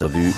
Revue.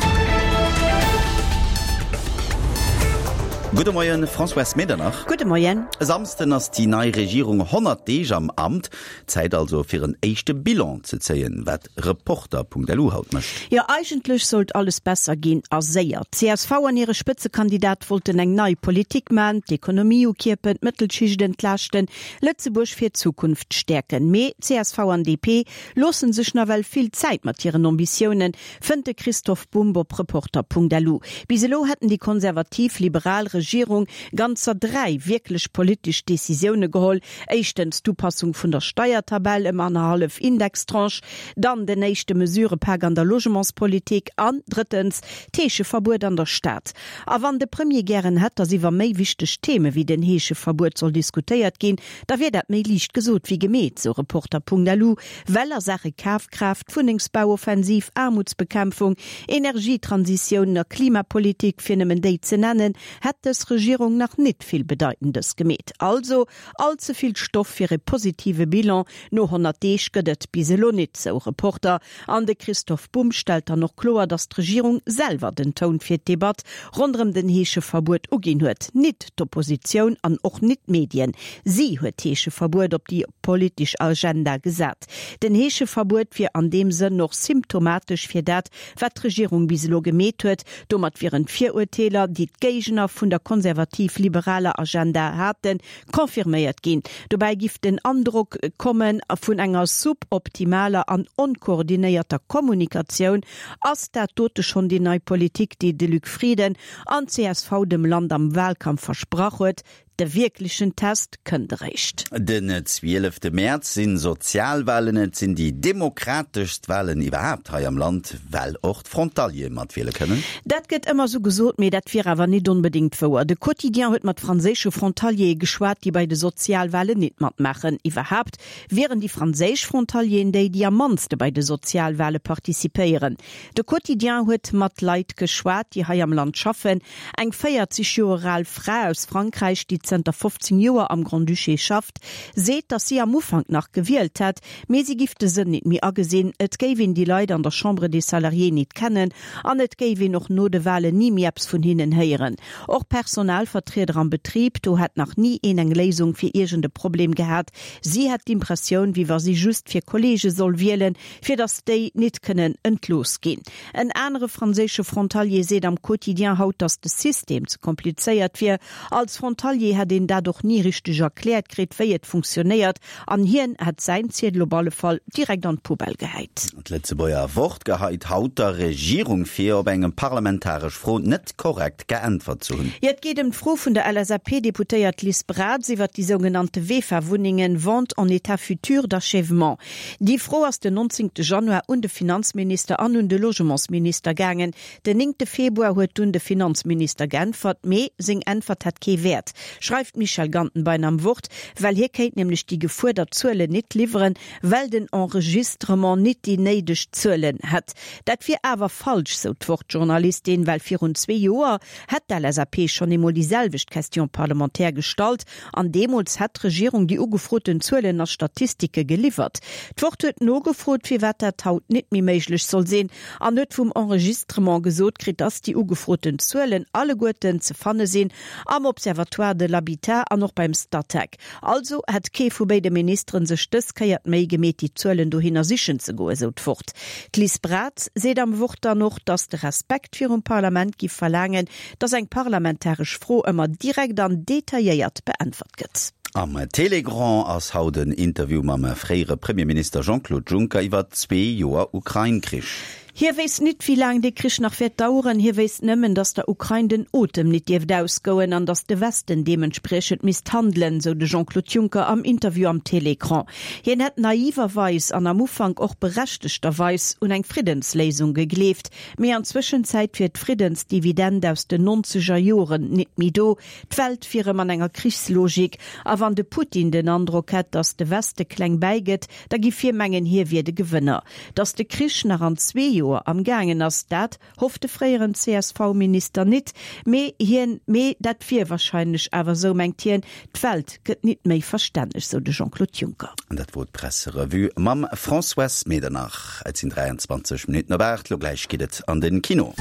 Gudde Moien, Françoise Medernach. Gudde Moien. E Samsden ass déi nei Regierung 100 Deeg am Amt. Zäit also fir en éischte Bilan ze zéien, wat Reporter.lu haut mécht. Jo, eigentlech sollt alles besser ginn a séier. D'CSV an hire Spëtzekandidat wollten eng nei Politik man, d'Ekonomie ukierpen, d'Mëttelschicht entlaaschten, Lëtzebuerg fir d'Zukunft stäerken. Mee csv an DP loossen sech nawell vill Zäit mat hiren Ambitiounen, fënnt de Christoph Bumb op Reporter.lu. Bis elo hätten déi konservativ-liberal Regierung ganzer 3 wierklech politesch Decisioune geholl, éischtens d'Upassung vun der Steiertabell ëm annerhallef Indextranche, dann den éischte Mesurepak an der Logementspolitik an drëttens d'Heescheverbuet an der Stad. A wann de Premier gären hätt, datt iwwer méi wichteg Theme wéi den Heescheverbuet soll diskutéiert ginn, da wier dat méi liicht gesot wéi gemeet, sou Reporter.lu. Well a Saache Kafkraaft, Wunnengsbauoffensiv, Aarmutsbekämpfung, Energietransitioun a Klimapolitik, fir nëmmen déi ze nennen, hätt dës Regierung nach nit vill Bedeitendes gemeet. Also all ze vill Stoff fir e positive Bilan no 100 Deeg gëtt et bis elo nit, sou Reporter. An de Christoph Bumb stellt dann och kloer, datt d'Regierung selwer den Toun fir d'Debatt ronderëm den Heescheverbuet uginn huet, nit d'Oppositioun an och nit d'Medien. Si huet d'Heescheverbuet op déi politesch Agenda gesat. Den Heescheverbuet wier an deem Sënn och symptomatesch fir dat, wat d'Regierung bis elo gemeet huet. Domat wieren d'Virurteeler, déi d'Géigner vun der konservativ-liberaler Agenda haten, confirméiert ginn. Dobäi giff den Androck komme vun enger suboptimaler an onkoordinéierter Kommunikatioun. Ass dat dote schonn déi nei Politik, déi de Luc Frieden an csv dem Land am Wahlkampf versprach huet? De wierklechen Test kënnt eréischt. Den zwielefte Mäerz sinn Sozialwahlen. Et sinn déi demokrateschst Wahlen iwwerhaapt hei am Land, well och d'Frontaliere matwiele kënnen. Dat gëtt ëmmer sou gesot, mee dat wier awer nit onbedéngt wouer. De Quotidien huet mat franséische Frontaliere geschwat, déi bei de Sozialwahlen nit matmaachen. Iwwerhaapt wieren déi franséisch Frontalieren déi, déi am mannste bei de Sozialwahle participéieren. De Quotidien huet mat Leit geschwat, déi hei am Land schaffen. Eng 40 Joer al Fra aus Frankräich, déi zënter 15 Joer am Grand-Duché schafft, seet, datt si am Ufank nach gewielt hätt, mee si giff de Sënn nit méi agesinn. Et géif een déi Leit an der Chambre des Salariés nit kennen an et géif een och no de Walen ni méi eppes vun hinnen héieren. Och Personalvertrieder am Betrib, do hätt nach ni een eng Léisung fir iergend e Problem gehat. Si hätt d'Impressioun, wéi wa si just fir Kolleege soll wielen, fir datt déi nit kënnen entlooss ginn. En anere franséische Frontalier seet am Quotidien haut, datt de System ze komplizéiert wier. Als Frontalier hätt een dat och ni richteg erkläert kritt, wéi et funktionéiert, an hien hätt säin Ziedel op alle Fall direkt an d'Poubelle gehäit. D'Lëtzebuerger Wort geheit haut der Regierung vir, op eng parlamentaresch Fro net korrekt geäntwert ze hunn. Jo, et geet ëm d'Fro vun der LSAP-Deputéiert Liz Braz iwwert déi sougenannte VEFA-Wunnengen, Vente en état futur d'achèvement. Déi Fro ass den 19 Januar un de Finanzminister an un de Logementsminister gaangen. Den 9 Februar huet dunn de Finanzminister geäntwert, mee seng Äntwert hätt kee Wäert, schreift d'Michèle Gantenbein am Wort, well hie kéint nämlech déi gefuerdert Zuelen nit liwweren, well den Enregistrement nit déi néideg Zuelen hätt. Dat wier awer falsch, sou d'Wort-Journalistin, well virun zwee Joer hätt d'LSAP schonn eemol déi selwecht Question parlementaire gestallt An deemools hätt d'Regierung déi ugefroten Zuelen a Statistike geliwwert. D'Wort huet nogefrot, firwat dat haut nit méi méiglech soll sinn, an huet vum Enregistrement gesot kritt, dass déi ugefroten Zuelen alleguerten ze fanne sinn am Observatoire de l'habitat an och beim Statec. Also hätt kee vu béide Ministeren sech dës Kéier d'Méi gemeet, déi Zuelen dohinner sichen ze goen, sou d'Wort. D'Liz Braz seet am Wort dann och, dass de Respekt virum Parlament giff verlaangen, dass eng parlamentaresch Fro ëmmer direkt an detailléiert beäntwert gëtt. Am Télégrand ass haut en Interview mam fréiere Premierminister Jean-Claude Juncker iwwer zwee Joer Ukrain-Krich. Hie wéisst nit, wéi laang dee Krich nach wäert daueren. Hie wéisst nëmmen, datt der Ukrain den Otem nit dierft ausgoen an datt de Westen deementspriechend misst handelen, sou de Jean-Claude Juncker am Interview am Télécran. Hien hätt naiverweis an am Ufank och berechtegterweis un eng Friddensléisung gegleeft, Mee an Zwëschenzäit wier d'Friddensdividend aus den nonzeger Joren nit méi do, d'Welt wier erëm an enger Krichslogik, a wann de Putin den Androck hätt, datt de Weste kleng bäigëtt, da giff hie mengen, hie wier de Gewënner. Datt de Krich nach an zwee Joer. Joer am gaangen ass. Dat hofft de fréieren CSV-Minister nit, mee hien, mee dat wier wahrscheinlech awer esou, mengt hien. D'Welt gëtt nit méi verstänneg, sou de Jean-Claude Juncker. An dat wor d'Presserevue mam Françoise Medernach. Et sinn 23 Minutten op 8, lo gläich geet et an den Kino.